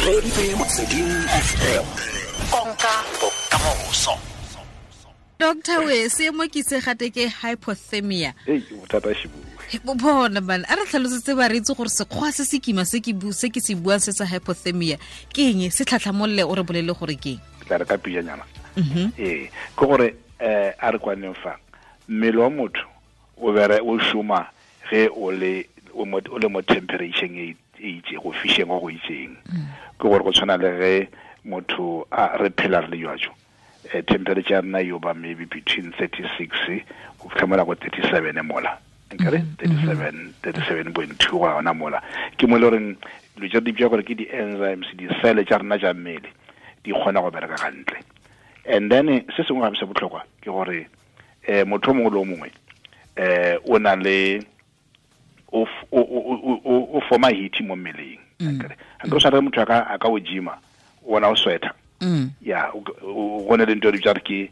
Reeditse Motsweding FM, konka bokamoso. Doctor, we seemo ke se gate ke hypothermia. Ei, bothata shibue. Bona bana, a re tlhalosetse ba re itse gore sekgwa se se kima se ke se ke se buang se sa hypothermia ke eng, se tlhatlhamolle o re bolele gore ke eng. Ke tla re ka pijanyana. Ee, ke gore a re kwaneng fa mmele wa motho o bere o šoma ge o le o le mo temperature e itse go fišeng go go itseng. Ke gore go tshwana le ge motho a re phela re le jwajo, temperature ya rena yo ba maybe between 36 go fitlha mola go 37 mola, nkare 37, 37.2 go yona mola, ke mo e le goreng dilo tse di bitsa gore ke di-enzymes, di-cell tša rena tša mmele di kgona go bereka gantle. And then se sengwe gape se botlhokwa ke gore motho o mongwe le o mongwe o na le o forma heat mo mmeleng. Akere o tshwana le motho a ka o gyma, ona o sweater ya go ne le ntho e re bitsa re ke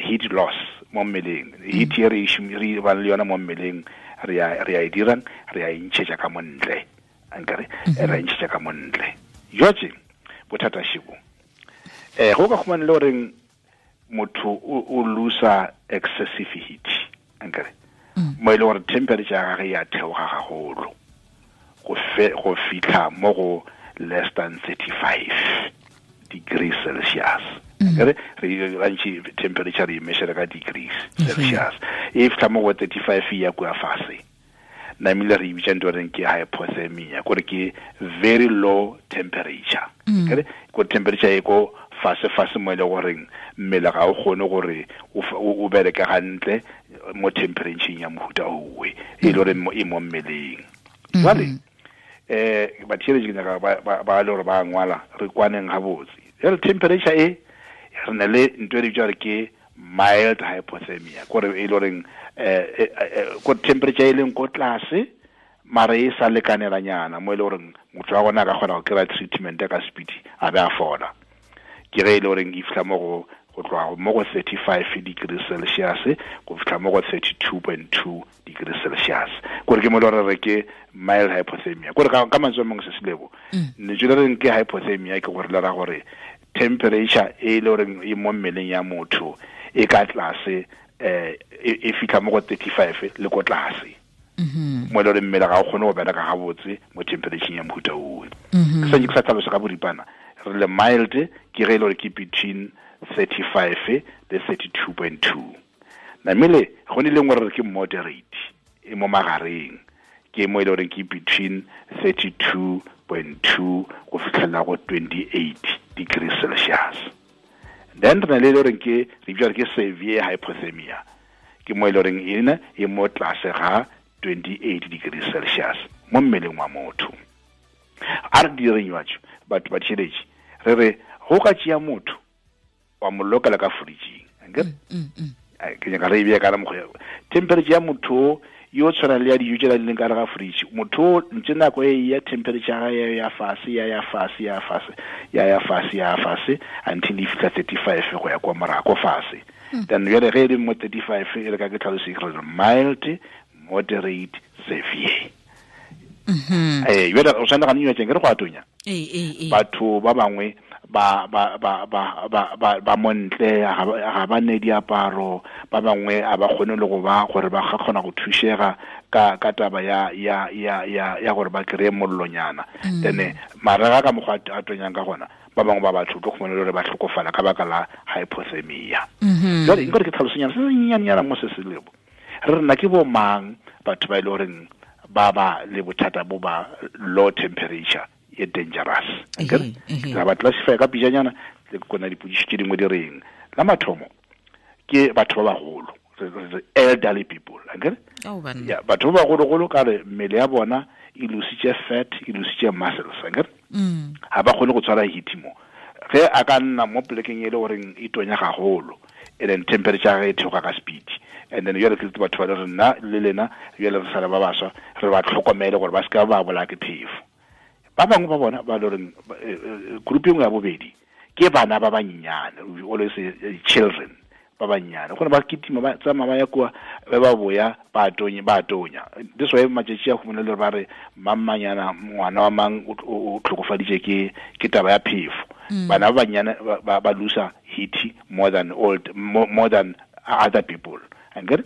heat loss mo mmeleng. Heat e re re bang le yona mo mmeleng, re ya e dirang, re ya e ntšhetša ka montle, ankere re ya e ntšhetša ka montle. Jwatse bothata shibo go ka khumana le goreng motho o losa excessive heat, ankere mo e le gore temperature ya gage ya theoga gagolo go fitlha mo go less than 35 degrees Celsius. Akere re gantši temperature re e measure ka degrees Celsius, e fitlha mo go 35 ya kua fase, namile re bitsa ntho reng ke hypothermia, kore ke very low temperature. Kere ko temperature e ko fase fase mo e le goreng mmele ga o kgone gore o bereke gantle mo temperature ya mohuta owe e le gore e mo mmeleng. Jwale batheeletši, ke nyaka ba le gore ba ngwala, re kwaneng gabotse. Jale temperature e re na le ntho e re bitsa gore ke mild hypothermia, kore e le goreng ko temperature e leng ko tlase mara e sa lekanelanyana mo e le goreng motho wa gona a ka kgona go kry-a treatment ka speed a be a fola, ke ge e le goreng e fitlha mo go tloga mo go 35 degrees Celsius go fitlha mo go 32.2 degrees Celsius, kore ke mo e le gore re ke mild hypothermia. Kore ka mantswe a mangwe, se selebo lentswe le reng ke hypothermia ke gore le ra gore temperature e le goreng e mo mmeleng ya motho e ka tlase, e fitlha mo go 35 le ko tlase, mo e le gore mmele ga o kgone go bereka gabotse mo temperature ya mohuta owe. Ke santse ke sa tlhalosa ka boripana. Re le mild ke ge e le gore ke between 35 le 32.2. Namele go ne le nngwe re re ke moderate, e mo magareng, ke mo e le goreng ke between 32.2 go fitlhelela go 28 degrees Celsius. Then re na le e le goreng ke re bitsa ke severe hypothermia, ke mo e le goreng ena e mo tlase ga 28 degrees Celsius mo mmeleng wa motho. A re direng jwatso batho ba tšheletše, re re go ka tšea motho wa mo lokela ka fridging, akere ke nyaka re e beye ka mokgwa, temperature ya motho yo tshwana le ya dijo tse di leng ka gare ga fridge. Motho ntse nako e ya temperature ya ya ya fase, ya ya fase, ya fase, ya ya fase, ya fase until e fitlha 35 go ya kwa morago fase. Then jale ge e le mo 35, e re ka ke tlhalose re mild, moderate, severe. Jale o tshwana ga nnywa teng ke re go atonya. Batho ba bangwe ba montle ga ba ne diaparo, ba bangwe a ba kgone le go ba gore ba kgona go thušega ka taba ya gore ba kry-e mollonyana. Then marega ka mokgwa a tonyang ka gona, ba bangwe ba batho tlo khumana le gore ba tlhokofala ka baka la hypothermia. Jale nkore ke tlhalosonyana se sennyanyana mo se se lebo re rena ke bo mang batho ba e le goreng ba ba le bothata bo ba low temperature e dangerous. Ra ba classify ka pijanyana le kona dipodiši tše dingwe di reng. La mathomo ke batho ba bagolo, elderly people, akere ya batho ba bagologolo ka re mmele ya bona e lositše fat, e lositše muscles, akere ga ba kgone go tshwara heat. Mo ge a ka nna mo polekeng e le goreng e tonya gagolo and then temperature ya e theoga ka speed, and then jale ke batho ba le re nna le lena jale re sale ba baswa, re ba tlhokomele gore ba se ka ba bolaya ke phefo. Ba bangwe ba bona ba le goreng group e nngwe ya bobedi ke bana ba banyenyane, we always say children. ba bannyane gone ba kitima ba tsamaya ba ya kua ba boya ba tonya this way matšatši a humana le ba re mammanyana ngwana wa mang o tlhokofaditše ke taba ya phefo. Bana ba bannyane ba lose heat more than old more than other people ankere.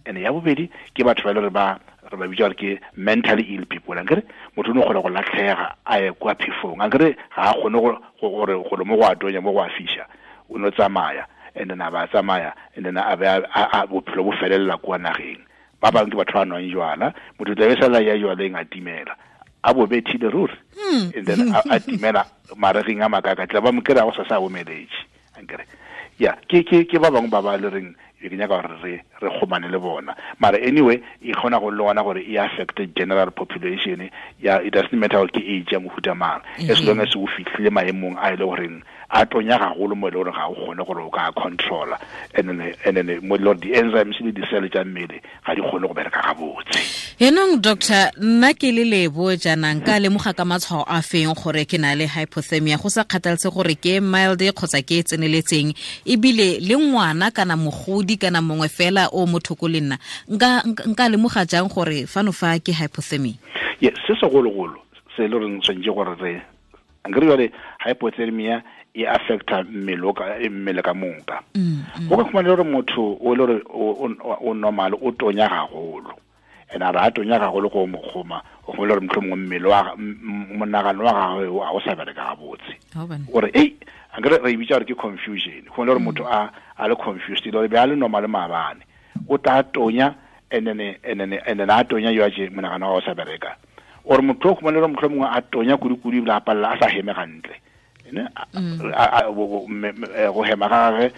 And ya bobedi ke batho ba le ba re ba bitsa ke mentally ill people ankere. Motho o no kgona go latlhega a ye kwa phefong ankere, ga a kgone gore go mo go a tonya mo go a fisha, o no tsamaya and then a ba tsamaya and then a ba bophelo bo felela kwa nageng. Ba bangwe ke batho ba nwang jwala, motho tla be sala ya jwaleng a timela a bo bethile ruri, and then a timela maregeng a makaka tla ba mo kry-a go sa sa omeletse ankere. Ya ke ba bangwe ba ba le reng ke nyaka gore re kgomane le bona, mara anyway e kgona go le gona gore e affect general population. Ya it doesn't matter gore ke age ya mohuta mang, as long as o fitlhile maemong a e le goreng a tonya gagolo mo e le gore ga o kgone gore o ka controla, and then mo le gore di-enzymes le di-cell tša mmele ga di kgone go bereka gabotse. Enong doctor, nna ke le Lebo jaana nka lemoga ka matshwao a feng gore ke na le hypothermia, go sa kgathalese gore ke mild kgotsa ke e tseneletseng, ebile le ngwana kana mogodi kana mongwe fela o mo thoko le nna nka lemoga jang gore fano fa ke hypothermia? Yes, se segologolo se le reng tshwanetse gore re ankere jale hypothermia e affecta mmele ka moka. Go ka khumana gore motho o le gore o normal o tonya gagolo, and a re a tonya gagolo go mo kgoma o khumana gore mohlomongwe mmele wa monagano wa gagwe a o sa bereka gabotse, gore ei ankere re bitsa gore ke confusion. Go le gore motho a le confused le be a le normal maabane, o tla tonya and then a tonya yo a je monagano wa o sa bereka, or motho o khumana gore mohlomongwe a tonya kudu-kudu ebile a palela a sa heme gantle, go hema ga gagwe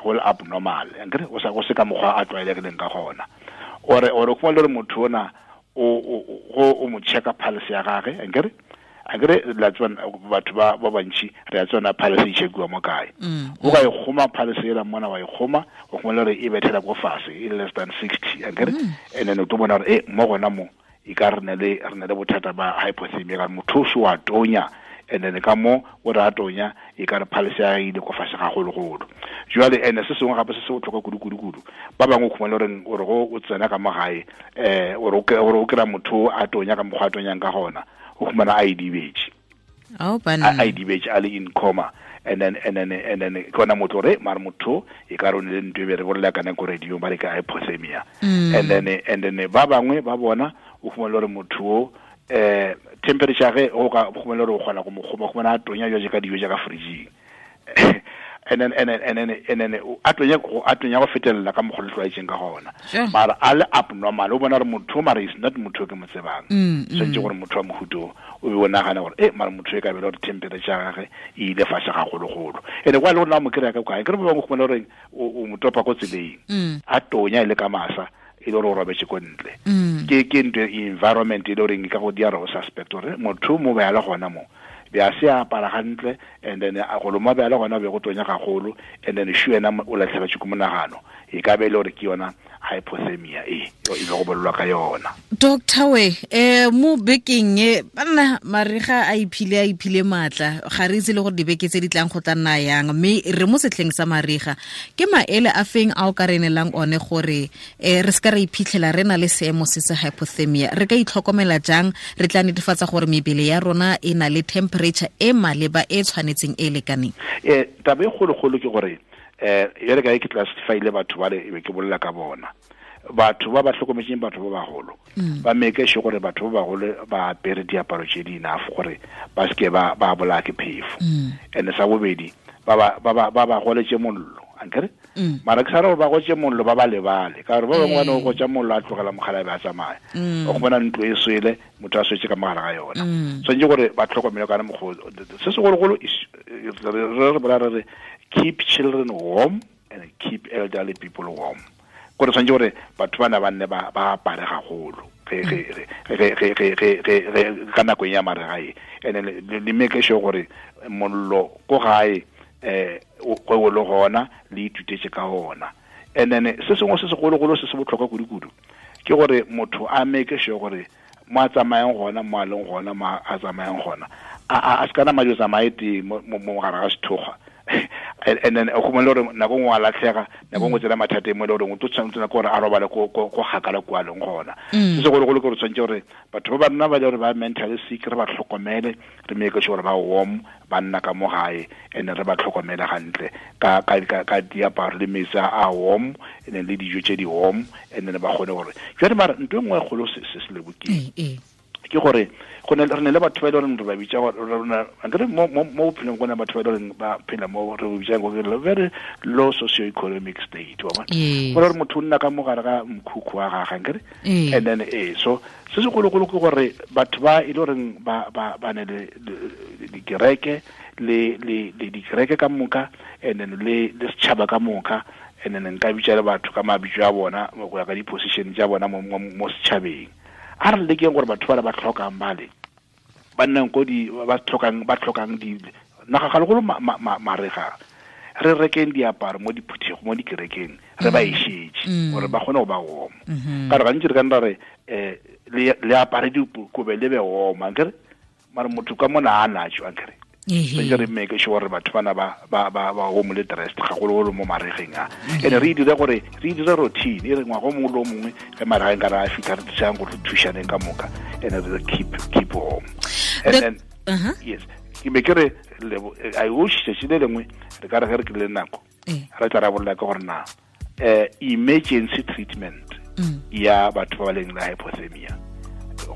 go le abnormal ankere, go se ka mokgwa a tlwaelegileng ka gona. Or o khumana gore motho ona o mo checka pulse ya gagwe ankere la tswana batho ba bantši re a tswana pulse e checkiwa mo kae, o ka e kgoma pulse ela mona wa e kgoma, o khumana gore e bethela ko fase e less than 60 ankere, and then o tlo bona gore mo gona mo e ka re ne le bothata ba hypothermia ka motho o wa tonya, and then ka mo o re a tonya e ka re pulse ya ile ko fase gagologolo. Jwale ene se sengwe gape se se botlhokwa kudu-kudu-kudu, ba bangwe o khumana gore gore go o tsena ka mo gae gore o kry-a motho a tonya ka mokgwa a tonyang ka gona, o khumana a idibetse, a idibetse a le in coma, and then ke ona motho gore mare motho e ka re o ne le ntho e be re bolela ka nako radio ba re ka hypothermia. And then ba bangwe ba bona o khumana gore motho o temperature ge o ka khumana gore o kgona go mo kgoma, khumana a tonya jwa ka dijo ja ka fridging, and then a tonya go fetelela ka mokgwa le tlwaetseng ka gona, mara a le abnormal o bona gore motho mara is not motho ke mo tsebang, tshwanetse gore motho wa mohuto o be o nagana gore mara motho e ka bela gore temperature ya gagwe e ile fase gagologolo, ene kwa le gore na mo kry-a ka kae kere ba bangwe khumana gore o mo topa ko tseleng a tonya e le ka masa e le gore o robetse ko ntle. Ke ntho environment e le goreng e ka go dira o suspect gore motho mo be a le gona mo be a se apara gantle, and then a go loma be a le gona be go tonya gagolo, and then shu ena o latlhegetswe ke monagano, e ka be e le gore ke yona hypothermia e be go bolelwa ka yona. Doctor we mo bekeng e banna mariga a iphile maatla, ga re itse le gore dibeke tse di tlang go tla nna yang, mme re mo setlheng sa mariga, ke maele a feng a o ka re neelang one gore re se ka re iphitlhela re na le seemo se se hypothermia, re ka itlhokomela jang, re tla netefatsa gore mebele ya rona e na le temperature e maleba e tshwanetseng e lekaneng? Taba e kgologolo ke gore e re ka ke classify-ile batho ba le e be ke bolela ka bona, batho ba ba hlokometseng batho ba bagolo ba make sure gore batho ba bagolo ba apere diaparo tse di enough gore ba seke ba bolaya ke phefo. And sa bobedi ba ba goletse mollo ankere, mara ke sa re gore ba gotse mollo ba ba lebale, ka gore ba bangwe ba ne go gotsa mollo a tlogela mogala be a tsamaya, o khumana ntlo e swele motho a swetse ka mogala ga yona. Tshwanetse gore ba tlhokomele kana mogolo se segologolo re bolela re re keep children warm and keep elderly people warm, gore tshwanetse gore batho bana ba nne ba apare gagolo ka nako ya mariga e, and le make sure gore mollo ko gae go le gona le ithutetse ka ona. And then se sengwe se segologolo se se botlhokwa kudu-kudu ke gore motho a make sure gore mo a tsamayang gona, mo a leng gona, mo a tsamayang gona, a se kana madi o tsamaye teng mo gare ga sethokgwa, And then o khumela gore nako nngwe a latlhega, nako nngwe tsena mathata mo le gore o tlo tshwanetse gore a robale ko gakala kwa leng gona. Se segologolo ke gore tshwanetse gore batho ba nna ba le gore ba mentally sick re ba tlhokomele, re make sure ba warm, ba nna ka mo gae, and re ba tlhokomele gantle ka diaparo le metsi a warm, and then le dijo tse di warm, and then ba kgone gore jwale mara ntho e nngwe e kgolo se se lebokeng ke gore go ne re ne le batho ba ile re ba bitsa gore rona akere mo bophelong go ne batho ba ile ba phela mo re bitsa go ke very low socio-economic state, wa bona, gore motho o nna ka mo gare ga mkhukhu wa gagwe akere. And then so se segologolo ke gore batho ba ile gore ba ne le dikereke le dikereke ka moka, and then le setšhaba ka moka, and then nka bitsa le batho ka mabitso a bona go ya ka di-position tsa bona mo setšhabeng. A re lekeng gore batho ba tlhokang bale ba nnang ko di ba tlhokang di naga gagolo marega, re rekeng diaparo mo diphuthego mo dikerekeng, re ba ešetse gore ba kgone go ba warm. Ka re gantsi re ka nna re le apare dikobe le be warm ankere, mara motho ka mona a natso ankere. So re make sure gore batho bana ba warm le dressed gagologolo mo maregeng a. And re dire gore re dire routine e re ngwaga o mongwe le o mongwe ge maregeng ka re a fitlha re thusang gore re thušaneng ka moka, and re keep warm. And then yes, ke be ke re I wish tsatsi le lengwe re ka re ge re kry-ile nako re tla rabolla ka gore na emergency treatment ya batho ba ba leng le hypothermia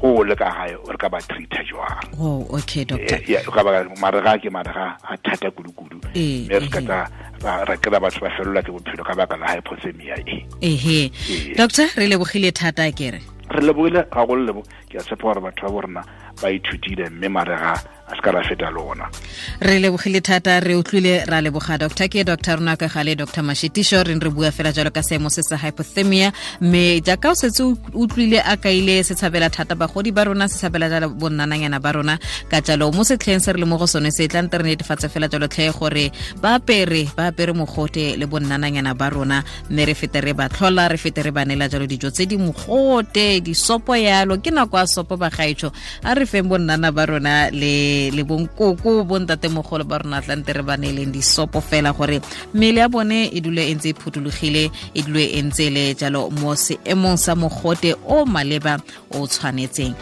go le ka gae re ka ba treata jwang. Oh, okay, doctor. Yeah, ka ba marega ke marega a thata kudu-kudu, mme re ka tla ra kry-a batho ba felelwa ke bophelo ka baka la hypothermia e. Ehe. Doctor, re lebogile thata kere. Re lebogile gagolo lebo, ke a tshepa gore batho ba borena ba ithutile mme marega a se ka ra feta lona. Re lebogile thata, re utlwile, ra leboga doctor. Ke doctor rona ka gale, Dr. Mashitisho, re bua fela jalo ka seemo se sa hypothermia, mme jaaka o setse utlwile a kaile se tshabela thata bagodi ba rona, se tshabela jalo bonnananyana ba rona, ka jalo mo setlheng se re le mo go sone se tla nte re netefatse fela jalo tlhe gore ba apere mogote le bonnananyana ba rona, mme re fete re ba tlhola, re fete re ba neela jalo dijo tse di mogote, disopo yalo. Ke nako ya sopo bagaetsho, a re feng bonnana ba rona le bonkoko bontatemogolo ba rona tlante re ba neeleng disopo fela gore mmele ya bone e dule e ntse e phuthologile, e dule e ntse le jalo mo seemong sa mogote o maleba o tshwanetseng.